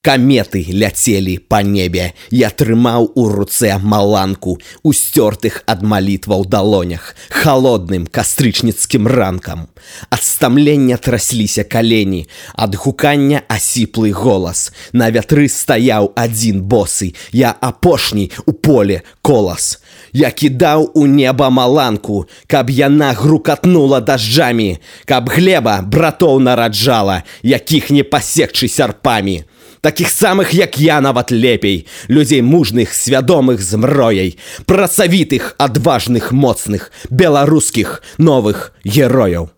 Каметы ляцелі па небе. Я трымаў у руцэ маланку, у сцёртых ад малітваў далонях, халодным кастрычніцкім ранкам. Ад стамлення трасліся калені, ад гукання асіплы голас. На вятры стаяў адзін босы, я апошні у поле колас. Я кідаў у неба маланку, каб яна грукатнула дажджамі, каб глеба братоў нараджала, якіх не пасекчы сярпамі. Такіх самых, як я, нават лепей, людзей мужных, свядомых змрояй, працавітых, адважных, моцных, беларускіх новых герояў.